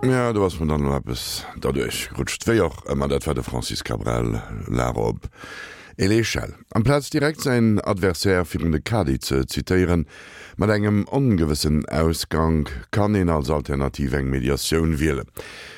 Ja, do ass mer dann elo eppes derduerch gerutscht. Wéi och ëmmer, dat war de Francis Cabrel, L'Arobe et l'échelle. Amplaz direkt säin Adversaire virun de Kadi ze zitéieren, mat engem ongewëssen Ausgank, kann een als Alternativ eng Mediatioun wielen.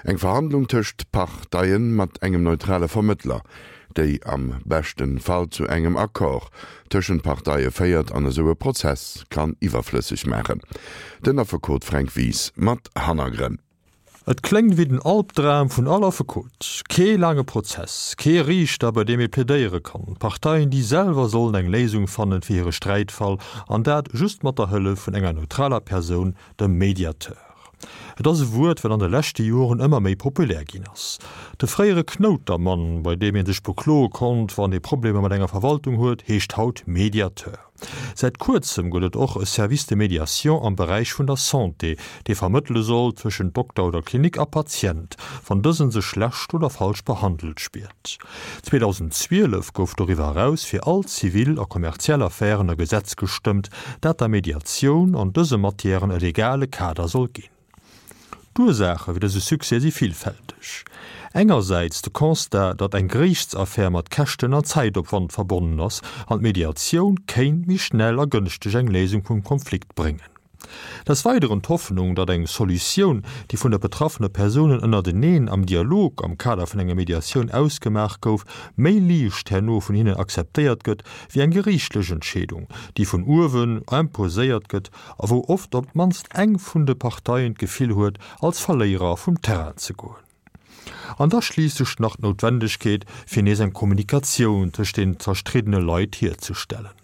Eng Verhandlung tëscht Parteien mat engem neutrale Vermëttler, déi am beschten Fall zu engem Accord tëschent Parteie féiert an esou e Prozess kann iwwerflësseg maachen. Den Affekot Fränk Wies mat Hannergrënn. Et kléngt wéi den Albdram vun all Affekot. Kee laange Prozess, kee Riichter, bei deem ee plädéiere kann, Parteien, déi selwer sollen eng Léisung fannen fir hire Sträitfall, an dat just mat der Hëllef vun enger neutraler Persoun, dem Mediateur. Et ass e Wuert, wat an de leschte Joren ëmmer méi populär ginn ass. De fréiere Knoutermann, bei deem ee sech bekloe konnt, wann ee Problemer mat enger Verwaltung huet, heescht haut Mediateur. Säit kuerzem gëtt et och e Service de médiation am Beräich vun der Santé, dee vermëttele soll tëschent Dokter oder Klinik a Patient, wann dësen sech schlecht oder falsch behandelt spiert. 2012 gouf doriwwer eraus fir all zivil a kommerziell Affären e Gesetz gestëmmt, dat der Mediatioun an dëse Matièren e legale Kader soll ginn. D'Ursaache fir dëse Succès si villfälteg. Engersäits de Constat, datt eng Geriichtsaffär mat Käschten an Zäitopwand verbonnen ass an d'Mediatioun kéint méi schnell a gënschteg eng Léisung vum Konflikt bréngen. Des Weideren d'Hoffnung, datt eng Solutioun, déi vun de betraffene Persounen ënnerteneen am Dialog am Kader vun enger Mediatioun ausgemaach gouf, méi liicht herno vun hinnen akzeptéiert gëtt wéi eng geriichtlech Entscheedung, déi vun uewen imposéiert gëtt a wou oft op d'mannst eng vun de Parteien d'Gefill huet, als Verléierer vum Terrain ze goen. An da schliisslech nach d'Noutwendegkeet, fir nees eng Kommunikatioun tëscht den zerstriddene Leit hierzestellen.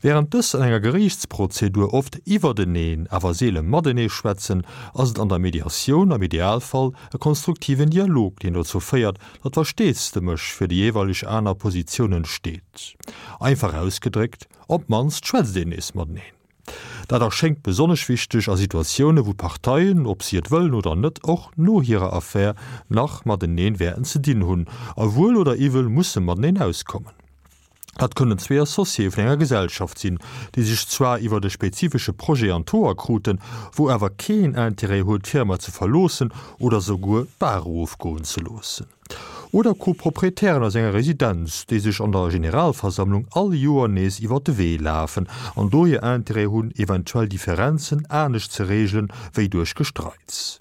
Wärend dës an enger Geriichtsprozedur oft iwwerteneen, awer seele matenee schwätzen, ass et an der Mediatioun am Idealfall e konstruktiven Dialog, deen dozou féiert, datt Versteesdemech fir déi jeeweileg aner Positioun entsteet. Einfach ausgedréckt, op d'mannst schwätzt een nees mateneen. Dat erschéngt besonnesch wichteg a Situatioune wou d'Parteien, ob si et wëllen oder net, och no hirer Affär nach mateneen wäerten ze dinn hunn a wuel oder iwwel musse mateneen auskommen. Dat kënnen zwee Associéë vun enger Gesellschaft sinn, déi sech zwar iwwert e spezifesche Projet an d'Hoer kruten, wou awer keen Intérêt huet, d'Firma ze verloossen oder souguer d'Bar erofgoen ze loossen. Oder Co-Proprietären aus enger Residenz, déi sech an der Generalversammlung all Joer nees iwwert de Wee lafen an dohier Intérêt hunn, eventuell Differenzen anescht ze reegelen, wéi duerch Gestreits.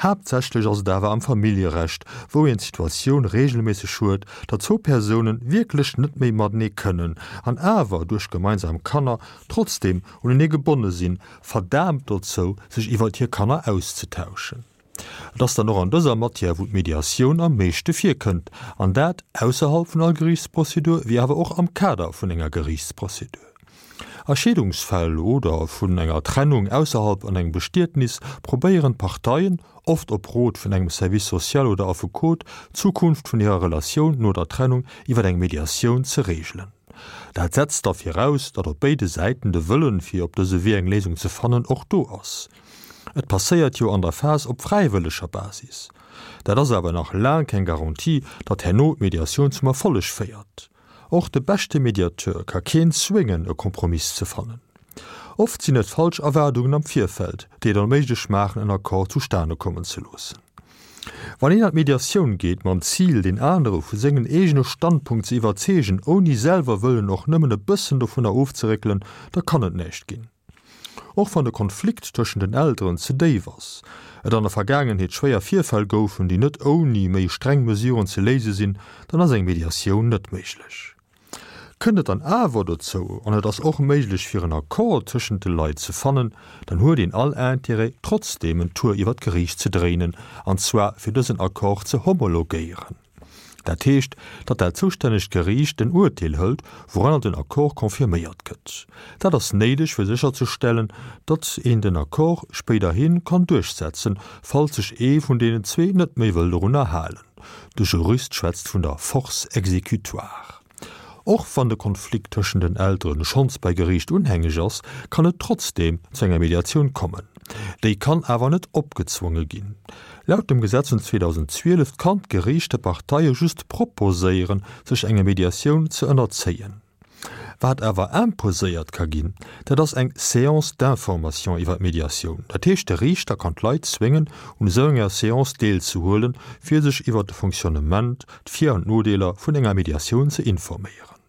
Haaptsächlech ass et awer am Familljerecht, wou een d'Situatioun reegelméisseg huet, datt zwou Persounen wierklech net méi matenee kënnen an awer duerch gemeinsam Kanner trotzdeem unenee gebonne sinn, verdaamt dozou, sech iwwert hir Kanner auszetauschen. Et ass dann och an dëser Matière, wou d'Mediatioun am meeschte virkënnt, an dat ausserhalb vun all Geriichtsprozedur, wéi awer och am Kader vun enger Geriichtsprozedur. A Scheedungsfäll oder vun enger Trennung ausserhalb an engem Bestietnis probéieren d'Parteien, oft op Rot vun engem Service social oder Affekot, d'Zukunft vun hirer Relatioun no der Trennung iwwer eng Mediatioun ze reegelen. Dat setzt da viraus, datt op béide Säiten de Wëllen, fir op dëse Wee eng Léisung ze fannen, och do ass. Et passéiert jo an der Phas op fräiwëlleger Basis. Dat ass awer nach laang keng Garantie, datt herno d'Mediatioun zum Erfolleg féiert. Och de beschte Mediateur ka keen zwéngen, e Kompromiss ze fannen. Oft sinn et falsch Erwaardungen am Virfeld, déi et onméiglech maachen, en Accord zustane kommen ze loossen. Wann een an d'Mediatioun geet mam Zil, deen anere vu sengen eegene Standpunkt ze iwwerzeegen, ouni selwer wëllen och nëmmen e bëssen dovunner ofzeréckelen, da kann et näischt ginn. Och wann de Konflikt tëschent den Elteren ze déif ass, et an der Vergaangenheet schwéier Virfäll goufen, déi net ouni méi streng Mesuren ze léise sinn, dann ass eng Mediatioun net méiglech. Kënnt et dann awer dozou, an et ass och méiglech fir en Accord tëschent de Leit ze fannen, dann huet een all Intérêt trotzdeem en Tour iwwer d'Geriicht ze dréinen, an zwar fir dësen Accord ze homologéieren. Dat heescht, datt dat zoustännegt Geriicht en Urteel hëlt, wouranner den Accord confirméiert gëtt. Dat ass néideg, fir sécherzestellen, datt een den Accord spéiderhi kann duerchsetzen, falls sech ee vun deenen zwee net méi wëll dorunner halen. De Jurist schwätzt vun der Force exécutoire. Och wann de Konflikt tëschent den Elteren schonns bei Geriicht unhängeg ass, kann et trotzdeem zu enger Mediatioun kommen. Déi kann awer net opgezwonge ginn. Laut dem Gesetz vun 2012 kann d'Geriicht de Parteie just proposéieren, sech enger Mediatioun ze ënnerzéien. Wat awer imposéiert ka ginn, dat ass eng Séance d'information iwwer d'Mediatioun. Dat heescht, de Riichter kann d'Leit zwéngen, un esou enger Séance deelzehuelen, fir sech iwwer de Fonctionnement, d'Vir an d'Nodeeler vun enger Mediatioun ze informéieren.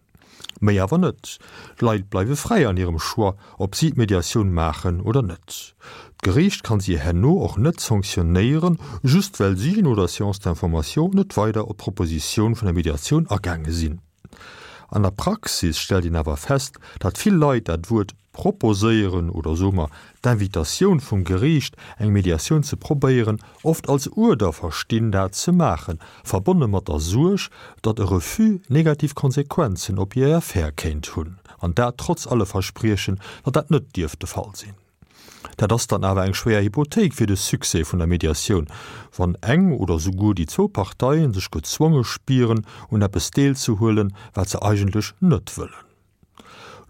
Méi awer net. D'Leit bleiwe fräi an hirem Choix, ob si d'Mediatioun maachen oder net. D'Geriicht kann si herno och net sanktionéieren, just well si no der Séance d'information net weider op d'Propositioun vun der Mediatioun agaange sinn. An der Praxis stellt een awer fest, datt vill Leit dat Wuert proposéieren oder soe mer d'Invitatioun vum Geriicht, eng Mediatioun ze probéieren, oft als Uerder verstinn, dat ze maachen, verbonne mat der Suerg, datt e Refus negativ Konsequenzen op hir Affär kéint hunn, an dat trotz alle Verspriechen, datt dat net dierft de Fall sinn. Dat ass dann awer eng schwéier Hypothéik fir de Succès vun der Mediatioun, wann eng oder souguer déi zwou Parteien sech gezwonge spieren, un eppes deelzehuelen, wat se eigentlech net wëllen.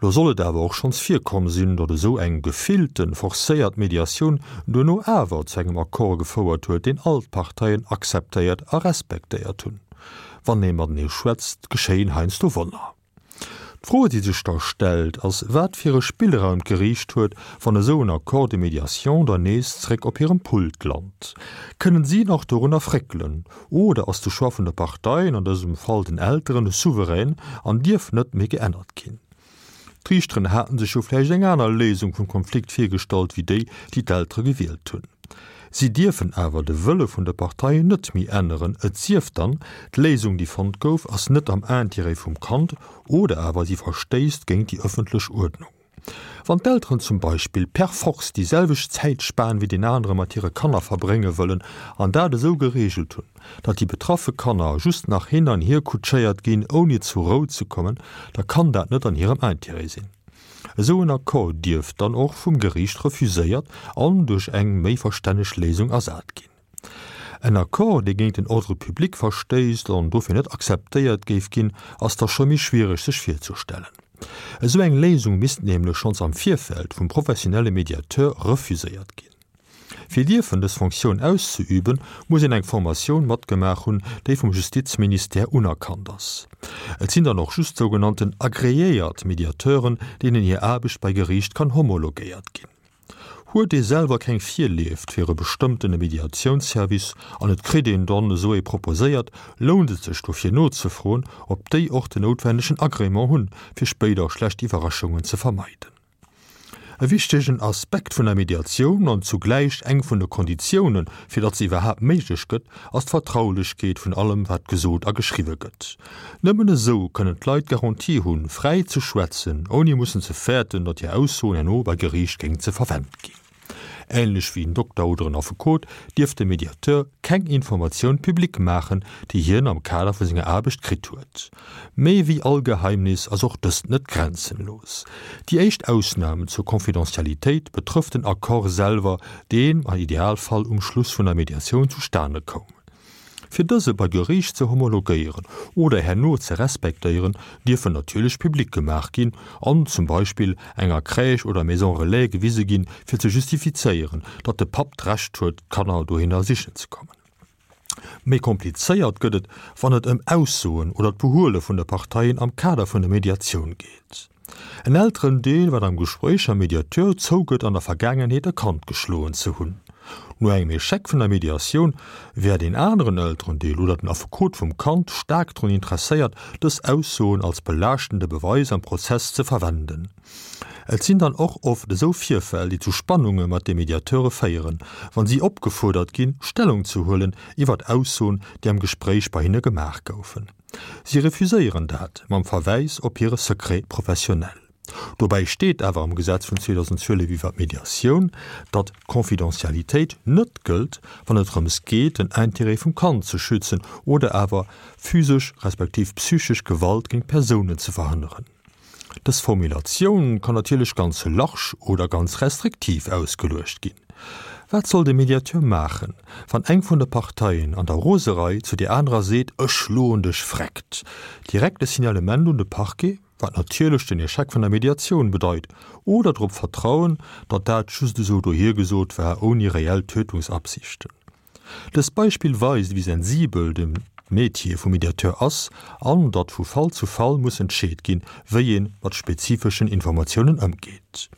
Lo soll et awer och schonns virkomm sinn, datt esou eng gefillten, forcéiert Mediatioun duerno awer zu engem Accord gefouert huet, deen all d'Parteien akzeptéiert a respektéiert hunn. Wann ee matenee schwätzt, geschéien heiansdo Wonner. D'Fro, déi sech da stellt, ass, wat fir e Spillraum d'Geriicht huet, wann esou en Accord de médiation dann nees zréck op hirem Pult lant. Kënnen si nach dorunner fréckelen? Oder ass de Choix vun de Parteien, an dësem Fall den Elteren, souverän an dierf net méi geännert ginn? D'Riichteren haten sech jo vläicht eng aner Léisung vum Konflikt virgestallt wéi déi, déi d'Eltere gewielt hunn. Si dierfen awer de Wëlle vun de Parteien net méi änneren, et sief dann, d'Léisung, déi fonnt gouf, ass net am Intérêt vum Kand oder awer si verstéisst géint déi ëffentlech Uerdnung. Wann d'Elteren zum Beispill per force déi selwecht Zäitspan wéi deen anere mat hire Kanner verbrénge wëllen an dat esou gereegelt hunn, datt déi betraffe Kanner just nach hin an hier kutschéiert ginn, ouni zur Rou ze kommen, da kann dat net an hirem Intérêt sinn. Esou en Accord dierf dann och vum Geriicht refuséiert an duerch eng méi verstänneg Léisung ersat ginn. En Accord, dee géint den Ordre public verstéisst an dofir net akzeptéiert géif ginn, ass da scho méi schwiereg sech virzestellen. Esou eng Léisung misst nämlech schonns am Virfeld vum professionelle Mediateur refuséiert ginn. Fir dierfen dës Fonctioun auszeüben, muss een eng Formatioun matgemaach hunn, déi vum Justizministère unerkannt ass. Et sinn dann och just sougenannten agreéiert Mediateuren, deenen hir Aarbecht bei Geriicht kann homologéiert ginn. Huet ee selwer keng Virlieft fir e bestëmmtene Mediatiounsservice an et kritt een dann esou ee proposéiert, lount et sech dofir nozefroen, ob déi och den noutwennegen Agrément hunn, fir spéider schlecht Iwwerraschungen ze vermeiden. E wichtegen Aspekt vun der Mediatioun an zugläich eng vun de Konditiounen, fir datt se iwwerhaapt méiglech gëtt, ass d'Vertraulechkeet vun allem, wat gesot a geschriwwe gëtt. Nëmmen esou kënnen d'Leit d'Garantie hunn, fräi ze schwätzen, ouni mussen ze fäerten, datt hir Aussoen herno bei Geriicht géing ze verwent ginn. Änlech wéi en Dokter oder en Affekot dierf de Mediateur keng Informatioun public maachen, déi hien am Kader vu senger Aarbecht kritt huet. Méi wéi all Geheimnis ass och dëst net grenzenlos. Déi éischt Ausnam zur Confidentialitéit betrëfft den Accord selwer, deen am Idealfall um Schluss vun der Mediatioun zustane koum. Fir dëse bei Geriicht ze homologéieren oder herno ze respektéieren, dierfen natierlech public gemaach ginn an zum Beispill enger Crèche oder Maison Relais gewise ginn, fir ze justifizéieren, datt de Papp d'Recht huet, d'Kanner dohinner sichen ze kommen. Méi komplizéiert gëtt et, wann et ëm Aussoen oder d'Behuele vun de Parteien am Kader vun der Mediatioun geet. En Elterendeel, wat am Gespréich mam Mediateur zougëtt an der Vergaangenheet e Kand geschloen ze hunn. No engem Echec vun der Mediatioun wär deen aneren Elterendeel oder den Affekot vum Kand staark drun interesséiert, dës Aussoen als belaaschtende Beweis am Prozess ze verwenden. Et sinn dann och oft esou Virfäll, déi zu Spannunge mat de Mediateure féieren, wann si opgefuerdert ginn, Stellung ze huelen iwwert Aussoen, déi am Gespréich bei hinne gemaach goufen. Si refuséieren dat mam Verwäis op hire Secret professionnel. Dobäi steet awer am Gesetz vun 2012 iwwer d'Mediatioun, datt d'Confidentialitéit net gëllt, wann et drëms geet, den Intérêt vum Kand ze schützen oder awer physesch respektiv psychesch Gewalt géint Persounen ze verhënneren. Dës Formulatioun kann natierlech ganz large oder ganz restriktiv ausgeluecht ginn. Wat soll de Mediateur maachen, wann eng vun de Parteien an der Roserei zu där anerer seet, Ech schloen dech vreckt? Direkt e Signalement un de Parquet, wat natierlech den Echec vun der Mediatioun bedeit, oder drop vertrauen, datt dat just esou dohiergesot war, ouni reell Tötungsabsichten? Dëst Beispill weist, wéi sensibel de. Metier vum Mediateur ass an datt vu Fall zu Fall muss entscheet ginn, wéi ee mat spezifeschen Informatiounen ëmgeet.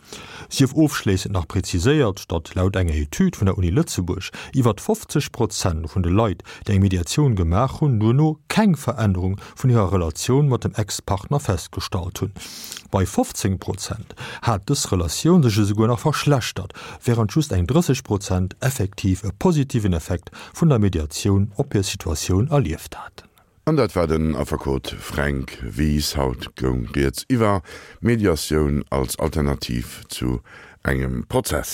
Sief ofschléissend nach präziséiert, datt laut enger Etüd vun der Uni Lëtzebuerg iwwert 50 Prozent vun de Leit, déi eng Mediatioun gemaach hunn, duerno keng Verännerung vun hirer Relatioun mat dem Ex-Partner festgestallt hunn. Bei 15 Prozent hat dës Relatioun sech esouguer nach verschlechtert, wärend just eng 30 Prozent effektiv e positiven Effekt vun der Mediatioun op hir Situatioun erlieft haten. An dat war den Affekot Fränk Wies. Haut goung rieds iwwer Mediatioun als Alternativ zu engem Prozess.